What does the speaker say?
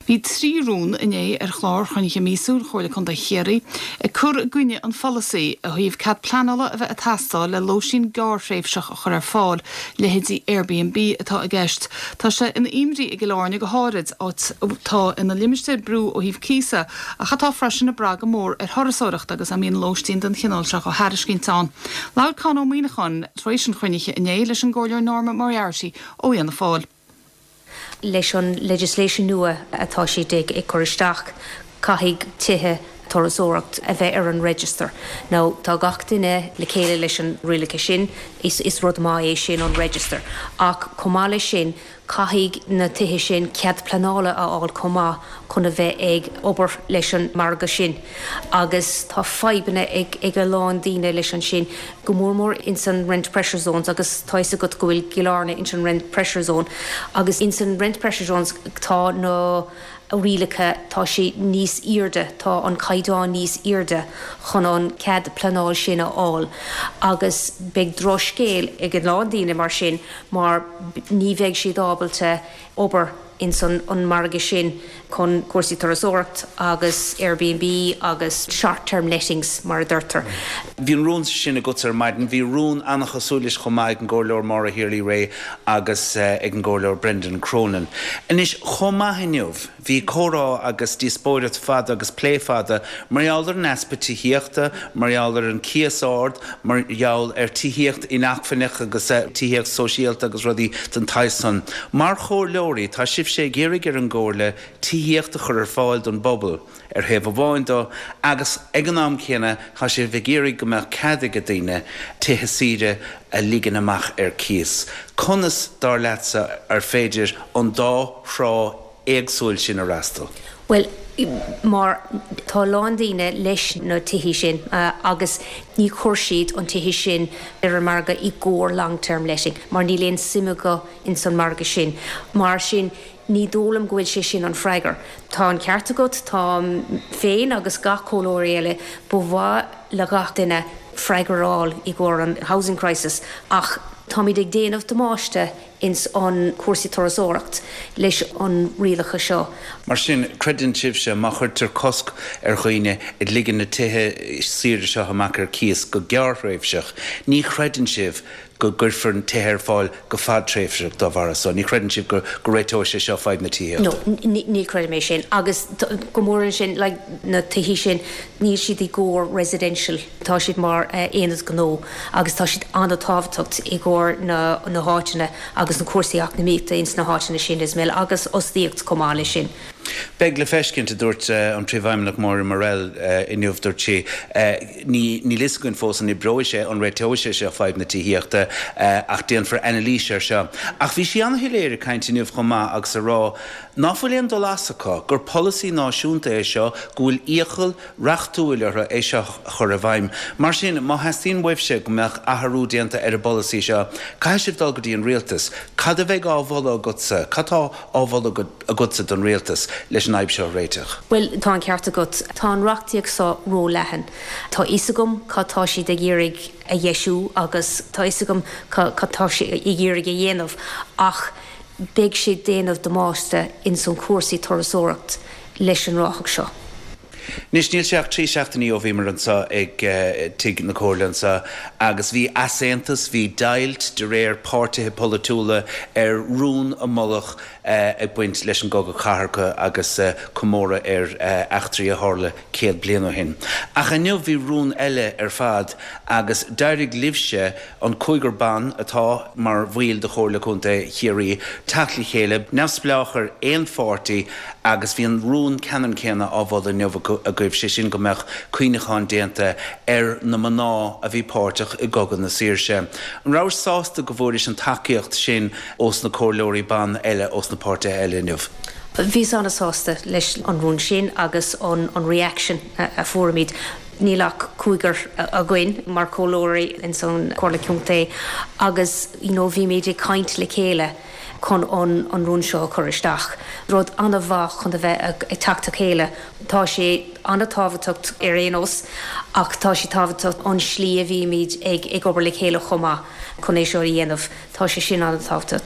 Bhí 3 rún inné ar chlár chruinnithe míosúil Chomhairle Contae Chiarraí ag cur i gcoinne an pholasaí ó thaobh cead pleanála a bheith ag teastáil le lóistín gearrthréimhseach a chur ar fáil, leithéidí Airbnb atá i gceist. Tá sé ina imní i gCill Airne go háirid, áit atá ina limistéar brú ó thaobh cíosa ach atá freisin ag brath go mór ar thurasóireacht agus a mbíonn lóistín den chineál seo á thairiscint ann. Labhair Con Ó Muíneacháin tar éis an chruinnithe inné leis an gComhairleoir Norma Moriarty ó Fhianna Fáil. Leis an legislation nua atá siad ag cur isteach, caithfidh tithe turasóireacht a bheith ar an register. Now, tá gach duine le chéile leis an rialacha sin, is rud maith é sin, an register. Ach chomh maith leis sin, caithfidh na tithe sin cead pleanála a fháil chomh maith chun a bheith ag obair leis an margadh sin. Agus tá fadhbanna ag a lán daoine leis an sin, go mór mór ins an rent pressure zones agus tá fhios agat go bhfuil Cill Airne ins an rent pressure zone agus ins an rent pressure zones tá na rialacha, tá sé níos airde, tá an caighdeán níos airde chun an cead pleanáil sin a fháil agus beidh drochscéal ag a lán daoine mar sin mar ní bheidh siad ábalta obair ins an margadh sin chun cúrsaí turasóireacht agus Airbnb agus short term lettings mar a deirtear. Bhí an rún sin agatsa ar maidin. Bhí rún an-chosúil leis chomh maith ag an gComhairleoir Maura Healy-Rae agus ag an gComhairleoir Brendan Cronin. Anois, chomh maith inniu, bhí comhrá agus díospóireacht fada agus plé fada mar gheall ar an easpa tithíochta, mar gheall ar an cíos ard, mar gheall ar tithíocht inacmhainneach agus tithíocht sóisialta agus rudaí den tsaghas san. Mar chomhairleoirí, tá sibhse ag iarraidh ar an gComhairle tithíocht a chur ar fáil don bpobal, ar thaobh amháin de, agus ag an am céanna tá sibh ag iarraidh go mbeadh cead ag daoine tithe saoire a ligean amach ar cíos. Conas, dar leatsa, ar féidir an dá thrá éagsúil sin a fhreastal? Bhuel, mar tá a lán daoine leis na tithí sin agus ní chuir siad an tithe sin ar an margadh i gcomhair long term letting mar níl aon suim acu ins an margadh sin. Mar sin ní dóigh liom go bhfuil sé sin an freagar. Tá an ceart agat, táim féin agus gach comhairleoirí eile, ba mhaith le gach duine freagra a fháil i gcomhair an housing crisis ach táimid ag déanamh damáiste ins an cúrsaí turasóireacht leis an rialacha seo. Mar sin, creideann sibhse, má chuirtear cosc ar dhaoine ag ligean na tithe saoire seo amach ar cíos go gearrthréimhseach, ní chreideann sibh go gcuirfear na tithe ar fáil go fadtréimhseach dá bharra so. Ní chreideann sibh go réiteoidh sé seo fadhb na tithíochta? No, ní chreidim é sin. Agus go mór ansin, like, na tithí sin, níl siad i gcomhair residential, tá siad mar aonad gnó agus tá siad an-tábhachtach i gcomhair na na háiteanna agus na cúrsaí eacnamaíochta ins na háiteanna sin as well agus fhostaíocht chomh maith leis sin. Beidh le feiscint, a dúirt an Príomhfheidhmeannach Moira Murrell inniu. Dúirt sí, Ní, níl fhios againn fós an oibreoidh sé, an réiteoidh sé seo fadhb na tithíochta ach déanfar anailís air seo. Ach bhí sí an-shoiléir ag caint inniu chomh maith agus a rá ná fuil aon dul as acu, gur polasaí náisiúnta é seo, go bhfuil iachall reachtúil orthu é seo a chur i bhfeidhm. Mar sin, má theastaíonn uaibhse go mbeadh athrú déanta ar an bpolasaí seo, caithfidh sibh dul go dtí an rialtas. Cad a bheidh á mholadh agatsa? Cad tá á mholadh agatsa don rialtas leis an fhadhb seo a réiteach? Bhuel, tá an ceart agat. Tá an reachtaíocht seo ró-leathan. Tá fhios agam cad tá siad ag iarraidh a dheisiú agus tá fhios agam cad tá siad ag iarraidh a dhéanamh ach beidh sé déanamh damáiste ins an cúrsaí turasóireacht leis an reachtaíocht seo. Anois, níl sé ach 3 seachtainí ó bhíomar anseo ag Tigh na Comhairle anseo agus bhí easaontas, bhí deighilt de réir páirtithe polaitiúla ar rún a moladh ag baint leis an gCogadh Cathartha agus comóradh ar eachtraí a tharla 100 bliain ó shin. Ach inniu bhí rún eile ar fad agus d'éirigh libhse, an cúigear ban atá mar bhaill de Chomhairle Contae Chiarraí, teacht le chéile, neamhspleách ar aon pháirtí agus bhí an rún ceannann céanna á mholadh inniu agaibh, sé sin go mbeadh cuimhneachán déanta ar na mná a bhí páirteach i gCogadh na Saoirse. An rabhais sásta go bhfuairis an tacaíocht sin ós na comhairleoirí ban eile ós na páirtithe eile inniu? Bhíos an-sásta leis an rún sin agus an reaction a fuairimid. Níl ach cúigear againn mar chomhairleoirí ins an Chomhairle Contae agus you know bhímid ag caint le chéile chun an an rún seo a chur isteach. Rud an-mhaith chun a bheith ag teacht le chéile. Tá sé an-tábhachtach ar aon nós ach tá sé tábhachtach an slí a bhímid ag ag obair le chéile chomh maith chun é seo a dhéanamh. Tá sé sin an-tábhachtach.